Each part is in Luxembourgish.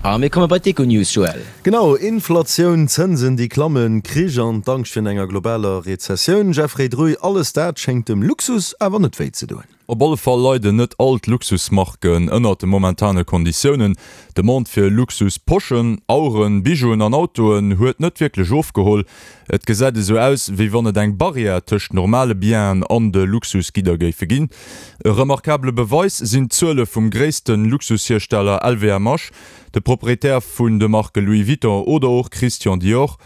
A mir komme bei d'Econews, Joël. Genau, Inflatioun, Zënsen déi klammen, Krich an d'Angscht virun enger globaler Rezessioun. Jeffrey Druy, alles dat schéngt dem Luxus awer net wéi ze doen. Op alle Fall leiden net all d'Luxusmarken ënnert de momentane Konditiounen. D'Demande fir Luxus-Poschen, Aueren, Bijouen an Autoen huet net wierklech ofgeholl. Et gesäit esou aus, wéi wann et eng Barrière tëscht normale Bienen an de Luxusgidder géife ginn. E remarkabele Beweis sinn d'Zuele vum gréisste Luxushiersteller LVMH, de Proprietär vun de Marke Louis Vuitton oder och Christian Dior.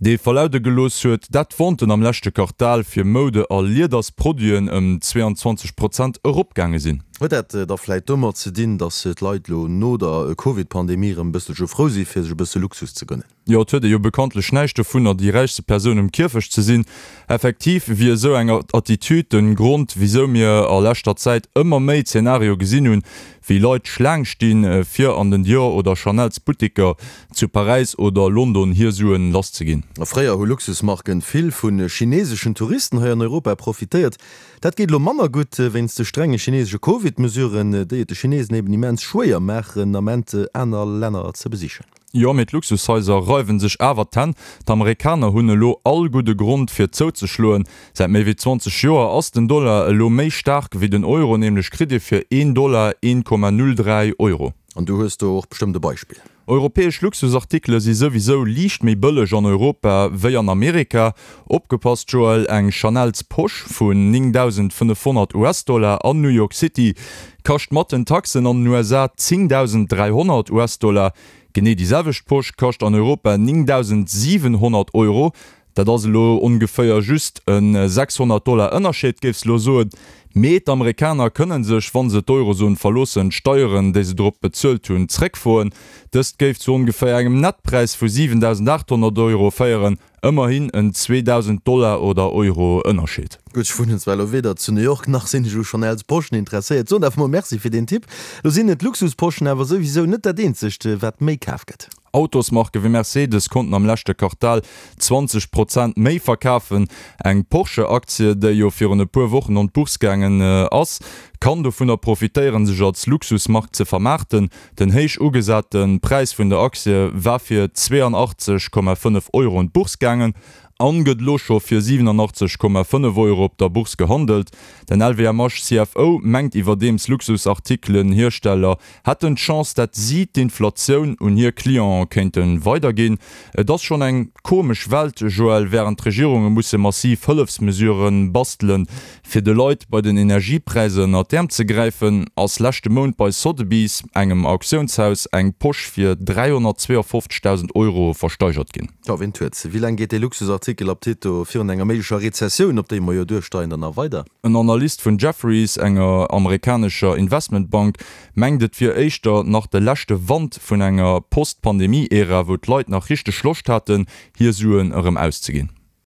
Dee verlaude gelooss huet, dat d'Venten am leschte Quartal fir Moude a Liedersproduiten ëm 22 Prozent eropgaange sinn. Huet dat da vläit domat ze dinn, datt d'Leit elo no der Covid-Pandemie erëm e bësselche frou si fir sech e bësse Luxus ze gönnen? Jo, et huet ee jo bekanntlech näischt dovunner, déi räichste Persoun um Kierfecht ze sinn. Effektiv wier esou eng Attitude de Grond, wisou mir a leschter Zäit ëmmer méi Zenario gesinn hunn, wéi Leit Schlaang stinn, fir an den Dior oder Chanel's Butteker zu Paräis oder London hir Suen lass ze ginn. Fréier hu Luxusmarken vill vu chineseschen Touristen hei an Europa profitéiert. Dat geet elo manner gutt wéinst de strenge chinesesche Covid-Mesuren, déi et de Chinesen eben immens schwéier maachen, Ament aner Länner ze besichen. Jo, mee d'Luxushaiser reiwen sech awer d'Hänn. D'Amerikaner hunn elo all gudde Grond fir zouzeschloen. Säit méi wéi 20 Joer ass den Dollar elo méi staark wéi den Euro, nämlech kritt ee fir een Dollar 1,03 Euro. An du hues do och bestëmmt e Beispill. Europäesch Luxusartikele si souwisou liicht méi bëlleg an Europa wéi an Amerika. Opgepasst Joël, eng Chanel's Posch vun 9.500 US-Dollar an New York City kascht mat den Taxen an den USA 10.300 US-Dollar. Genee déi selwecht Posch kascht an Europa 9.700 Euro. Dat ass elo ongeféier just e 600 Dollar Ënnerscheed, géifs elo soen. Mee d'Amerikaner kënne sech, wa se d'Eurozon verloossen, d'Steieren, déi se drop bezuelt hunn, zréckfroen. Dëst géif zu ongeféier engem Nettpräis vu 7.800 Euro féieren, ëmmerhin en 2.000 Dollar oder Euro Ënnerscheed. Gutt, ech wunnen zwar elo weder zu New York, nach sinn ech u Chanel's Poschen interesséiert. Soen awer mol Merci fir deen Tipp. Lo sinn et Luxusposchen awer souwisou net dat eenzegt, wat méi kaf gëtt. Autosmarke wéi Mercedes konnten am leschte Quartal 20 Prozent méi verkafen. Eng Porsche-Aktie, déi jo virun e puer Wochen an d'Bourse gaangen ass, kann dovunner profitéieren, sech als Luxusmark ze vermaarten. Den héich ugesate Präis vun der Aktie war fir 82,5 Euro un d'Bourse gaangen an gëtt elo scho fir 87,5 Euro op der Bourse gehandelt. Den LVMH CFO mengt iwwerdeems, Luxusartikelen-Hiersteller hätten d'Chance, dat si d'Inflatioun un hir Clienten kéinte weiderginn. Et ass schonn eng komesch Welt, Joël, wärend d'Regierunge musse massiv Hëllefsmesurë bastelen, fir de Leit bei den Energiepräisser ënnert d'Äerm ze gräifen, ass leschte Mount bei Sotheby's, engem Auktiounshaus, eng Posch fir 352.000 Euro versteigert ginn. Jo, ween huet se? Wéi laang geet dee Luxusartikel ab Tito virun enger méiglecher Rezessioun, op déi mer jo duersteieren, dann nach weider? En Analyst vun Jefferies, enger amerikanescher Investmentbank, mengt et wier éischter nach de leschte Wand vun enger Post-Pandemie-Ära, wou d'Leit nach richteg Loscht haten, hir Suen erëm auszeginn.